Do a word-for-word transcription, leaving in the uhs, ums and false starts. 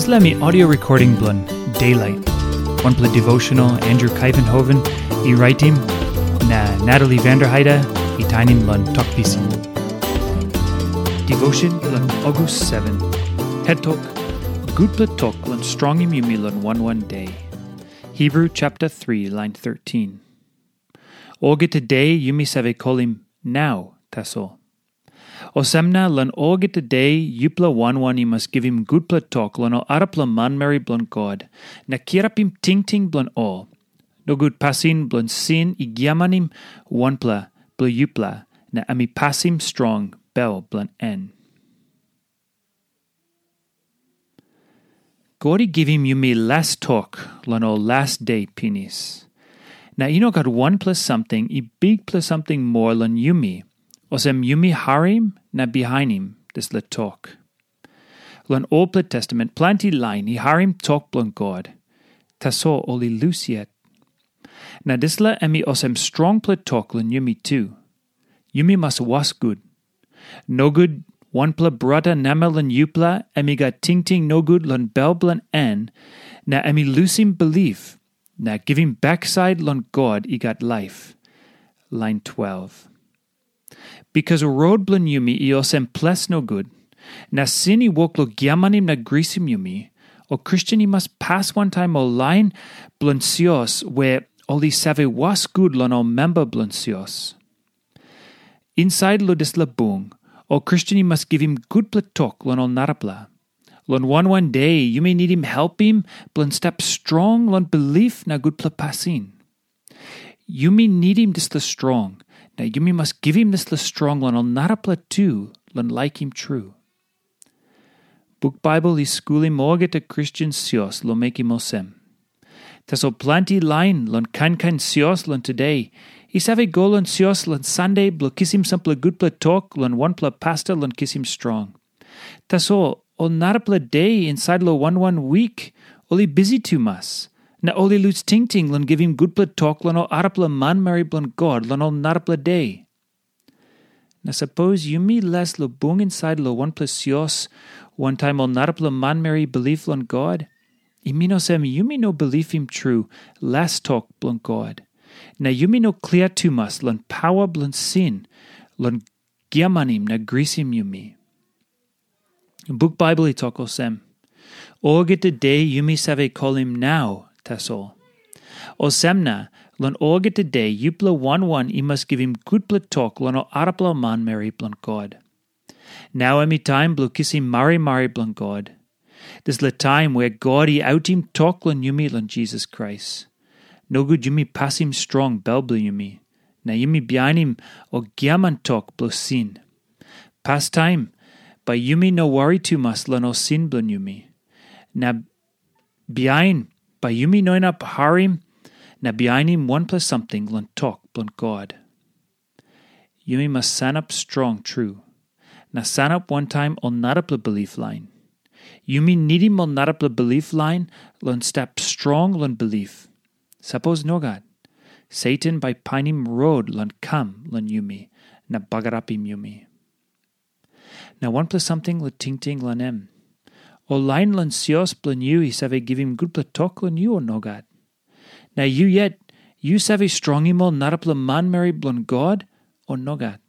Dispela mi audio recording bilong Daylight, wanpela devotional Andrew Kaivenhoven i raitim, na Natalie Vanderheide i tainim long tok pisin. Devotion bilong August seven. Het tok, gutpela tok long strongim yumi long wan wan de. Hebrew chapter three, line thirteen. Olgeta de yumi save kolim nau tasol. Olsem na long olgeta de yupela wan wan i mas givim gutpela tok long ol arapela manmeri bilong God, na kirapim tingting bilong ol. Nogut pasin bilong sin i giamanim wanpela bilong yupela, na em i pasim strong bel bilong en. God i givim yumi las tok long ol las de pinis. Na i no gat wanpela samting i bikpela samting moa long yumi, olsem yumi harim na bihainim dispela tok. Long Olpela Testament planti lain i harim tok bilong God, tasol ol i lus yet. Na dispela em i olsem strongpela tok long yumi tu. Yumi mas was gut. Nogut wanpela brata namel long yupela em i gat tingting nogut long bel bilong en, na em i lusim bilip, na givim baksait long God i gat laip. Lain twelve. Bikas rot bilong yumi i olsem ples nogut, na sin i wok long giamanim na grisim yumi, ol Kristen i mas pas wantaim ol lain bilong sios we ol i save was gut long ol memba bilong sios. Insait long dispela bung, ol Kristen i mas givim gutpela tok long ol narapela. Long wan wan de yumi nidim helpim bilong stap strong long bilip na gutpela pasin. Yumi nidim dispela strong, na yumi mas givim dispela strong long ol narapela tu long laikim tru. Buk Baibel i skulim olgeta Kristen sios long mekim olsem. Tasol planti lain long kain kain sios long tude i save go long sios long Sande bilong kisim sampela gutpela tok long wanpela pasta long kisim strong. Tasol ol narapela de insait long wan wan wik ol i bisi tumas, na ol i lus tingting long givim gutpela tok long ol arapela manmeri bilong God long ol narapela de. Na sapos yumi les long bung insait long wanpela sios wantaim ol narapela manmeri i bilip long God, i min olsem yumi no bilipim tru las tok bilong God, na yumi no klia tumas long pawa bilong sin long giamanim na grisim yumi. Buk Baibel i tok olsem, olgeta de yumi save kolim nau tasol. Olsem na, long olgeta de yupela wan wan i mas givim gutpela tok long ol arapela manmeri bilong God. Nau em i taim bilong kisim marimari bilong God. Dispela taim wea God i autim tok long yumi long Jisas Krais. Nogut yumi pasim strong bel bilong yumi, na yumi bihainim ol giaman tok bilong sin. Pastaim, bai yumi no wari tumas long ol sin bilong yumi. Na bihain, bai yumi no inap harim na bihainim wanpela samting long tok bilong God. Yumi mas sanap strong tru, na sanap wantaim ol narapela bilip lain. Yumi nidim ol narapela bilip lain long stap strong long bilip. Sapos nogat, Satan bai painim rot long kam long yumi na bagarapim yumi. Na wanpela samting long tingting long em. Ol lain long sios bilong yu i save givim gutpela tok long yu o nogat? Na yu yet, yu save strongim ol narapela manmeri bilong God o nogat?